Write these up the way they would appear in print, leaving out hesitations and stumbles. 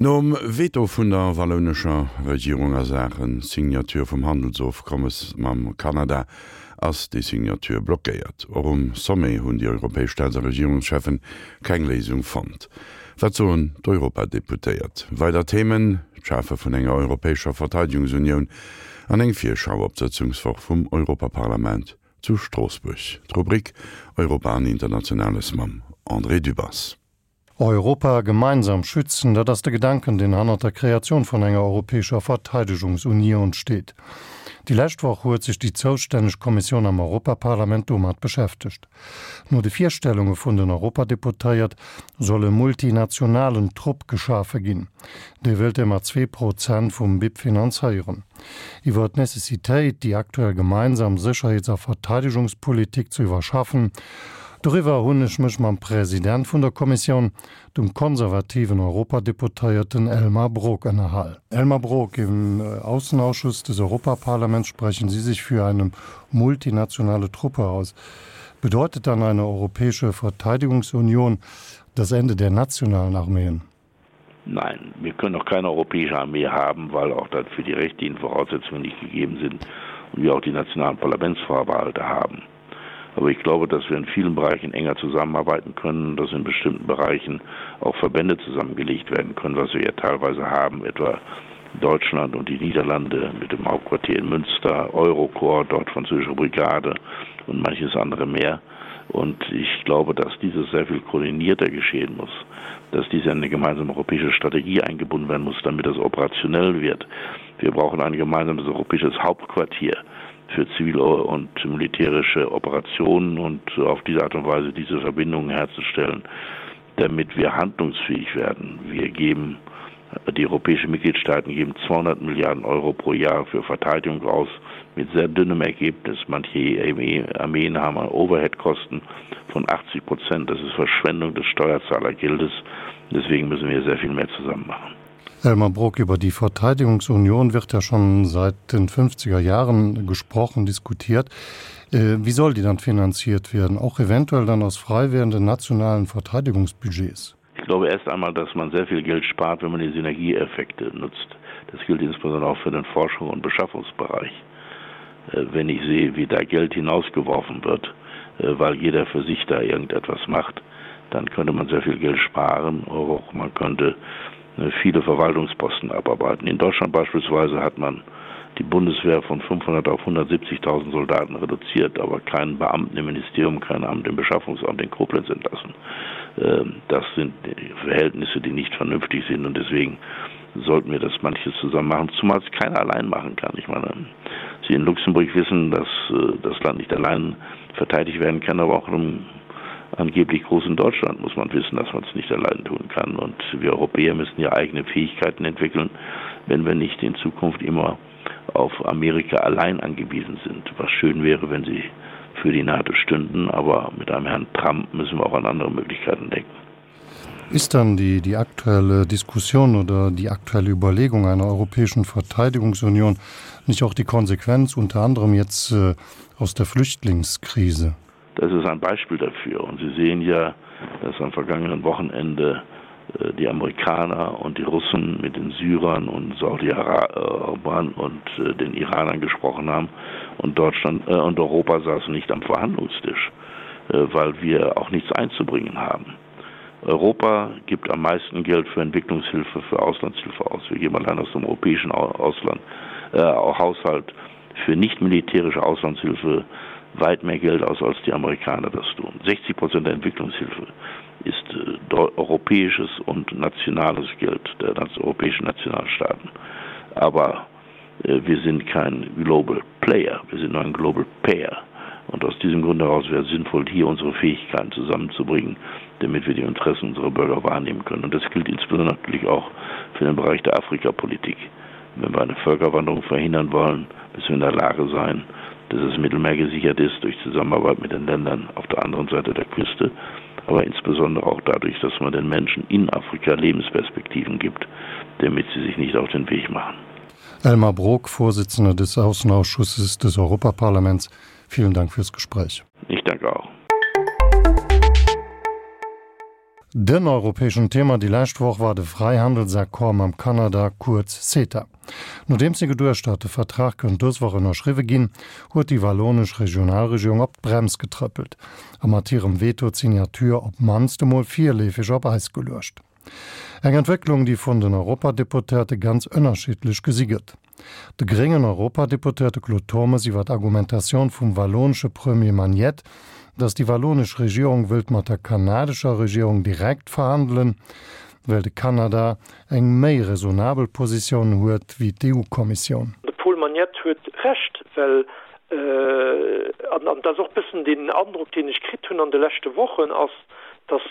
Nom Veto vun der wallounescher Regierung a Saache Signature vum Handelsofkommes mam Kanada ass déi Signature blockéiert. Och um Sommet hunn déi europäesch Staats a Regierungscheffen keng Léisung fonnt. Wat soen d'Europadeputéiert? Weider Themen, D'Schafe vun enger europäescher Verteidegungsunioun an eng Virschau op d'Sëtzungswoch vum Europaparlament zu Stroossbuerg. D'Rubrik Europa an Internationales mam André Dübbers. Europa gemeinsam schützen, dat ass de Gedanken, deen hannert der Kreatioun vun enger europäescher Verteidegungsunioun steet. Déi lescht Woch huet sech déi zoustänneg Kommissioun am Europaparlament domat beschäftegt. No de Virstellunge vun den Europadeputéiert soll e multinationalen Trupp geschafe ginn. Dee wëllt e mat 2% vum BIP finanzéieren. Iwwer d'Necessitéit, déi aktuell gemeinsam Sécherheets a Verteidegungspolitik ze iwwerschaffen, doriwwer hunn ech mech mam President vun der Kommissioun, dem konservativen Europadeputéierten Elmar Brok ënnerhal. Elmar Brok, im Aussenausschuss des Europaparlaments sprechen Sie sich für eine multinationale Truppe aus. Bedeutet dann eine europäische Verteidigungsunion das Ende der nationalen Armeen? Nein, wir können auch keine europäische Armee haben, weil auch dafür die rechtlichen Voraussetzungen nicht gegeben sind und wir auch die nationalen Parlamentsvorbehalte haben. Aber ich glaube, dass wir in vielen Bereichen enger zusammenarbeiten können, dass in bestimmten Bereichen auch Verbände zusammengelegt werden können, was wir ja teilweise haben, etwa Deutschland und die Niederlande mit dem Hauptquartier in Münster, Eurocorps, dort französische Brigade und manches andere mehr. Und ich glaube, dass dieses sehr viel koordinierter geschehen muss, dass dies in eine gemeinsame europäische Strategie eingebunden werden muss, damit das operationell wird. Wir brauchen ein gemeinsames europäisches Hauptquartier für zivile und militärische Operationen und auf diese Art und Weise diese Verbindungen herzustellen, damit wir handlungsfähig werden. Wir geben die europäischen Mitgliedstaaten geben 200 Milliarden Euro pro Jahr für Verteidigung aus mit sehr dünnem Ergebnis. Manche Armeen haben Overheadkosten von 80 Prozent. Das ist Verschwendung des Steuerzahlergeldes. Deswegen müssen wir sehr viel mehr zusammen machen. Elmar Brok, über die Verteidigungsunion wird ja schon seit den 50er Jahren gesprochen, diskutiert. Äh, wie soll die dann finanziert werden? Auch eventuell dann aus frei werdenden nationalen Verteidigungsbudgets? Ich glaube erst einmal, dass man sehr viel Geld spart, wenn man die Synergieeffekte nutzt. Das gilt insbesondere auch für den Forschung- und Beschaffungsbereich. Äh, wenn ich sehe, wie da Geld hinausgeworfen wird, äh, weil jeder für sich da irgendetwas macht, dann könnte man sehr viel Geld sparen. Auch man könnte äh, viele Verwaltungsposten abarbeiten. In Deutschland beispielsweise hat man die Bundeswehr von 500 auf 170.000 Soldaten reduziert, aber keinen Beamten im Ministerium, kein Amt im Beschaffungsamt in Koblenz entlassen. Ähm, das sind Verhältnisse, die nicht vernünftig sind und deswegen sollten wir das manches zusammen machen, zumal es keiner allein machen kann. Ich meine, Sie in Luxemburg wissen, dass äh, das Land nicht allein verteidigt werden kann, aber auch im angeblich großen Deutschland muss man wissen, dass man es nicht allein tun kann. Und wir Europäer müssen ja eigene Fähigkeiten entwickeln, wenn wir nicht in Zukunft immer auf Amerika allein angewiesen sind. Was schön wäre, wenn sie für die NATO stünden, aber mit einem Herrn Trump müssen wir auch an andere Möglichkeiten denken. Ist dann die, die aktuelle Diskussion oder die aktuelle Überlegung einer europäischen Verteidigungsunion nicht auch die Konsequenz unter anderem jetzt äh, aus der Flüchtlingskrise? Das ist ein Beispiel dafür. Und Sie sehen ja, dass am vergangenen Wochenende äh, die Amerikaner und die Russen mit den Syrern und Saudi-Arabern und äh, den Iranern gesprochen haben und Deutschland äh, und Europa saßen nicht am Verhandlungstisch, weil wir auch nichts einzubringen haben. Europa gibt am meisten Geld für Entwicklungshilfe, für Auslandshilfe aus. Wir geben allein aus dem europäischen Ausland äh, Haushalt für nicht militärische Auslandshilfe weit mehr Geld aus, als die Amerikaner das tun. 60 Prozent der Entwicklungshilfe ist äh, europäisches und nationales Geld der europäischen Nationalstaaten. Aber äh, wir sind kein Global Player, wir sind nur ein Global Payer. Und aus diesem Grund heraus wäre es sinnvoll, hier unsere Fähigkeiten zusammenzubringen, damit wir die Interessen unserer Bürger wahrnehmen können. Und das gilt insbesondere natürlich auch für den Bereich der Afrikapolitik. Wenn wir eine Völkerwanderung verhindern wollen, müssen wir in der Lage sein, dass das Mittelmeer gesichert ist durch Zusammenarbeit mit den Ländern auf der anderen Seite der Küste, aber insbesondere auch dadurch, dass man den Menschen in Afrika Lebensperspektiven gibt, damit sie sich nicht auf den Weg machen. Elmar Brok, Vorsitzender des Außenausschusses des Europaparlaments, vielen Dank fürs Gespräch. Ich danke auch. Den europäeschen Thema déi lescht Woch war de Fräihandelsaccord mam Kanada, kuerz CETA. Nodeems ee geduecht hat, de Vertrag kënnt dës Woch ënnerschriwwe ginn, huet déi wallonesch Regionalregierung op d'Brems getrëppelt a mat hirem Veto d'Signature op d'mannst emol virleefeg op Eis geluecht. Eng Entwécklung, déi vun den Europadeputéierte ganz ënnerschiddlech gesi gëtt. De gréngen Europadeputéierte Claude Turmes iwwer d'Argumentatioun vum wallonesche Premier Magnet, datt déi wallonesch Regierung wëllt mat der kanadescher Regierung direkt verhandelen, well de Kanada eng méi raisonnabel Positioun huet wéi d'EU-Kommissioun. De Paul Magnette huet Recht, well, an dat ass och e bëssen deen Androck, deen ech kritt hunn an de leschte Wochen, ass, datt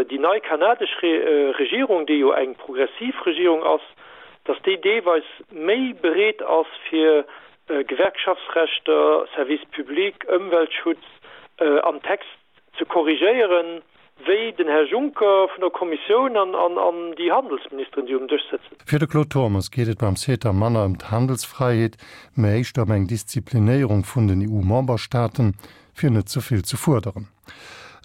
déi nei kanadesch Regierung, déi jo eng progressiv Regierung ass, datt déi deelweis méi bereet ass fir Gewerkschaftsrechter, Service public, Ëmweltschutz am Text ze korrigéieren, wéi den Här Juncker vun der Kommissioun an déi Handelsministeren, déi um Dësch sëtzen. Fir de Claude Turmes geet et beim CETA manner ëm d'Handelsfräiheet, mä éischter ëm eng Disziplinéierung vun den EU-Memberstaaten, fir net ze vill ze fuerderen.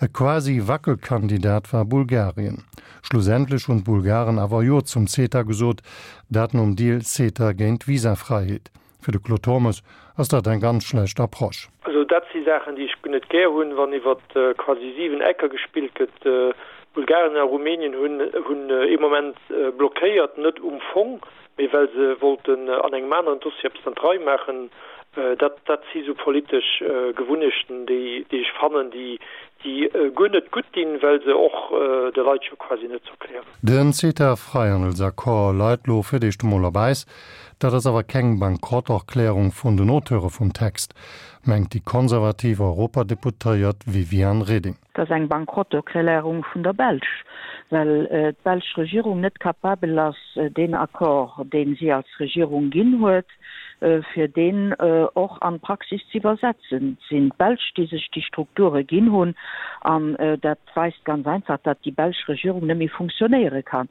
E quasi Wackelkandidat war Bulgarien. Schlussendlech hunn d'Bulgaren awer Jo zum CETA gesot, dat nom Deal CETA géint Visafräiheet. Fir de Claude Turmes ass dat eng ganz schlecht Approche. Also dat si Saachen, déi ech guer net gär hunn, wann iwwer quasi 7 Ecker gespillt gëtt. Bulgarien a Rumänien hunn ee Moment blockéiert, net um Fong, mee well se wollten an engem aneren Dossier eppes an d'Rei maachen. Dat, dat si sou politesch Gewunnechten, déi, déi ech fannen, déi, déi guer net gutt dinn, well se och de Leit jo quasi net z'erklären. Den CETA-Fräihandelsaccord leit lo fir d'éischt emol op Äis. Dat ass awer keng Bankrotterklärung vun den Auteure vum Text, mengt déi konservativ Europadeputéiert Viviane Reding. Et ass eng Bankrotterklärung vun der Belsch, well d'belsch Regierung net capabel ass, deen Accord, dee si als Regierung ginn huet, fir deen och an d'Praxis ze iwwersetzen. Et sinn d'Belsch, déi sech déi Strukture ginn hunn, an dat weist ganz einfach, datt déi belsch Regierung net méi funktionéiere kann.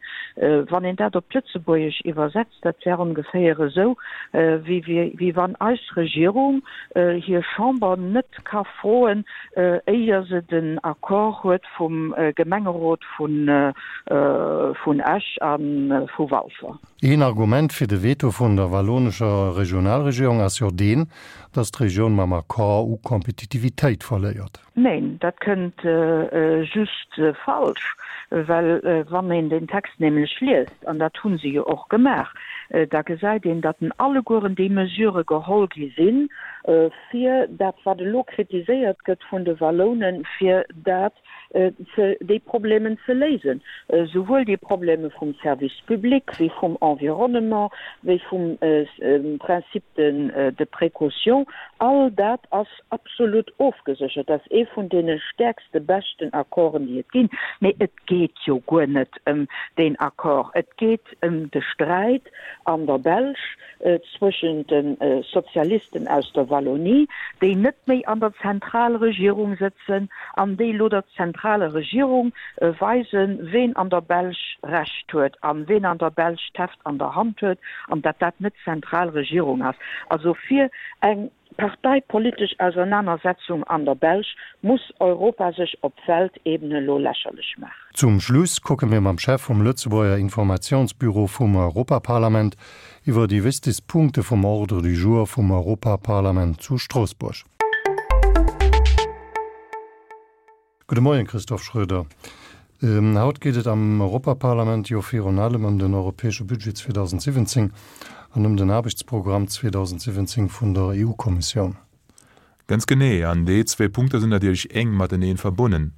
Wann een dat op d'Lëtzebuergesch iwwersetzt, dat wär ongeféier esou, wéi wann eis Regierung hir Chamber net ka froen, éier se den Accord huet vum Gemengerot vun Esch a vu Walfer. Een Argument fir de Veto vun der wallonescher Regionalregierung ass jo deen, datt d'Regioun mam Accord u Kompetitivitéit verléiert. Neen, dat kënnt just falsch, well wann een den Text nämlech liest, an dat hu se jo och gemaach, da gesäit een, datt en allegueren déi Mesurë geholl gi sinn, fir dat wat elo kritiséiert gëtt vun de Wallounen, fir dat ze, déi Problemen ze léisen, souwuel déi Probleme vum Service public wéi vum Environnement, wéi vum Principe de précaution. All dat ass absolut ofgeséchert. Dat ass ee vun deene stäerkste, beschten Accorden, déi et ginn. Mee et geet jo guer net ëm deen Accord. Et geet ëm de Sträit an der Belsch zwëschent de Sozialisten aus der Wallonie, déi net méi an der Zentralregierung sëtzen an déi elo der zentraler Regierung weisen, ween an der Belsch Recht huet a ween an der Belsch d'Heft an der Hand huet an datt dat net d'Zentralregierung ass. Also fir eng parteipolitesch Ausernanersetzung an der Belsch muss Europa sech op Weltebene elo lächerlech maachen. Zum Schluss kucke mir mam Chef vum Lëtzebuerger Informatiounsbüro vum Europaparlament iwwer déi wichtegst Punkte vum Ordre du jour vum Europaparlament zu Stroossbuerg. Gudde Moien, Christophe Schroeder. Haut geet et am Europaparlament jo virun allem ëm den europäesche Budget 2017 an ëm den Aarbechtsprogramm 2017 vun der EU-Kommissioun. Ganz genee, an déi zwee Punkter sinn natierlech enk mateneen verbonnen.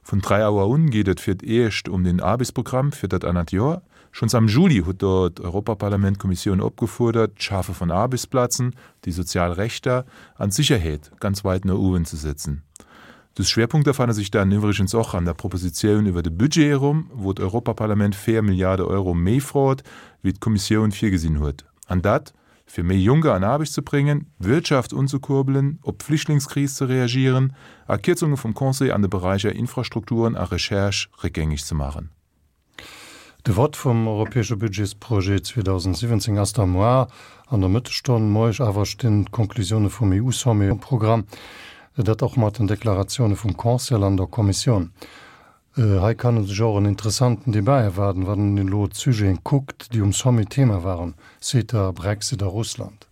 Vun 3 Auer un geet et fir d'éischt um den Aarbechtsprogramm fir dat anert Joer. Schonns am Juli huet do d'Europaparlament d'Kommissioun opgefuerdert, d'Schafe vun Aarbechtsplazen, déi sozial Rechter an d'Sicherheet ganz weit no uewen ze setzen. Dës Schwerpunkter fanne sech dann iwwregens och an der Propositioun iwwer de Budget erëm, wou d'Europaparlament 4 Milliarde Euro méi frot, wéi d'Kommissioun virgesinn huet. An dat, fir méi Jonker an Aarbecht ze bréngen, d'Wirtschaft unzekurbelen, op d'Flüchtlingskris ze reagieren a Kierzunge vum Conseil an de Beräicher Infrastrukturen a Recherche réckgängeg ze maachen. De Vott vum europäesche Budgetsprojet 2017 ass da moar an der Mëttesstonn. Moieg awer stinn d'Konklusioune vum EU-Sommet um Programm, dat och mat den Deklaratioune vum Conseil an der Kommissioun. Hei kann e sech och en interessanten Debat erwaarden, wann een elo d'Sujeten kuckt, déi um Sommet Thema waren, CETA, Brexit a Russland.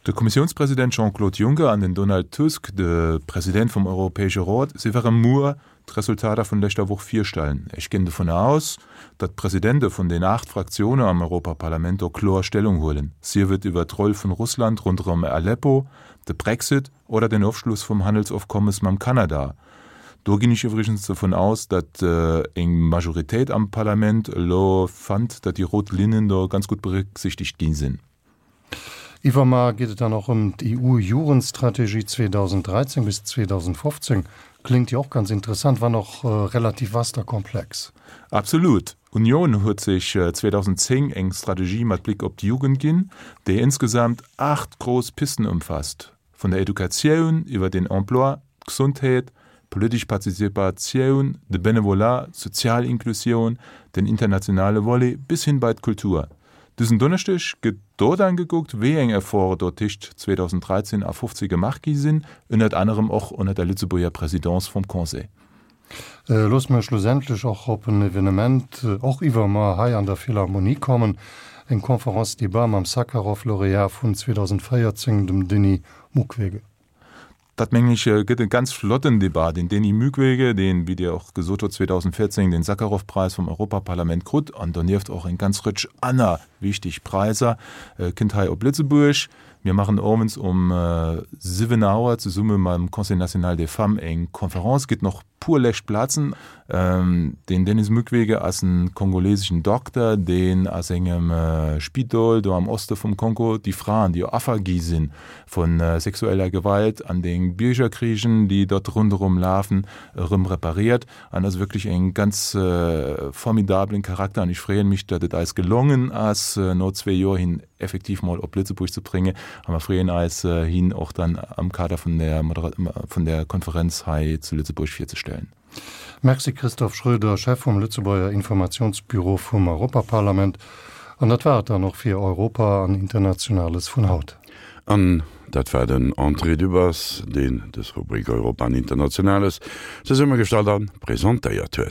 De Kommissiounspresident Jean-Claude Juncker an den Donald Tusk, de President vum Europäesche Rot, si wäre muer d'Resultater vun leschter Woch virstellen. Ech ginn dovun aus, datt d'Presidente vun den 8 Fraktioune am Europaparlament do kloer Stellung huelen, sief et iwwer d'Roll vun Russland ronderëm Aleppo, de Brexit oder den Ofschluss vum Handelsofkommes mam Kanada. Do ginn ech iwwregens dovun aus, datt eng Majoritéit am Parlament elo fannt, datt déi rout Linnen do ganz gutt berécksichtegt gi sinn. Iwwermar geet et dann och ëm d'EU-Jugendstrategie 2013 bis 2015. Kléngt jo och ganz interessant, wann och relativ vast a komplex. Absolut. D'Unioun huet sech 2010 eng Strategie mat Bléck op d'Jugend ginn, déi insgesamt 8 grouss Pisten ëmfasst, vun der Educatioun iwwer den Emploi, d'Gesondheet, d'politesch Participatioun, de Benevolat, d'sozial Inklusioun, den internationale Volet bis hin bei d'Kultur. Dësen Donneschdeg gëtt do dann gekuckt, wéi eng Efforte do tëscht 2013 a 15 gemaach gi sinn, ënnert anerem och ënnert der Lëtzebuerger Présidence vum Conseil. Loosse mer schlussendlech och op en Evenement, och iwwermuer, hei an der Philharmonie kommen, eng Conférence-débat mam Sakharov-Laureat vun 2014, dem Denis Mukwege. Dat, mengen ech, gëtt e ganz flotten Debat. Den Denis Mukwege, deen, wéi Dir och gesot hutt, 2014 den Sakharov-Preis vum Europaparlament krut an donieft och eng ganz Rëtsch aner wichteg Präisser, kënnt hei op Lëtzebuerg. Mir maachen owends um 7 Auer zesumme mam Conseil national des femmes eng Conférence. Gëtt nach puer lescht Plazen. Den Denis Mukwege ass en kongoleseschen Dokter, deen a sengem Spidol do am Oste vum Kongo déi Fraen, déi Affer gi si vu sexueller Gewalt an de Biergerkrigen, déi dort ronderëm lafen, erëm repariert. An ass wierklech en ganz formidablen Charakter an ech freeën mech, datt et eis gelongen ass, no zwee Joer hien effektiv mol op Lëtzebuerg ze bréngen a mer freeën eis, hien och dann am Kader vun der vun der Konferenz hei zu Lëtzebuerg virzestellen. Merci Christophe Schroeder, Chef vum Lëtzebuerger Informationsbüro vum Europaparlament. An dat war et dann och fir Europa an Internationales vun haut. An dat war den André Dübbers, deen dës Rubrik Europa an Internationales zesummegestallt a presentéiert huet.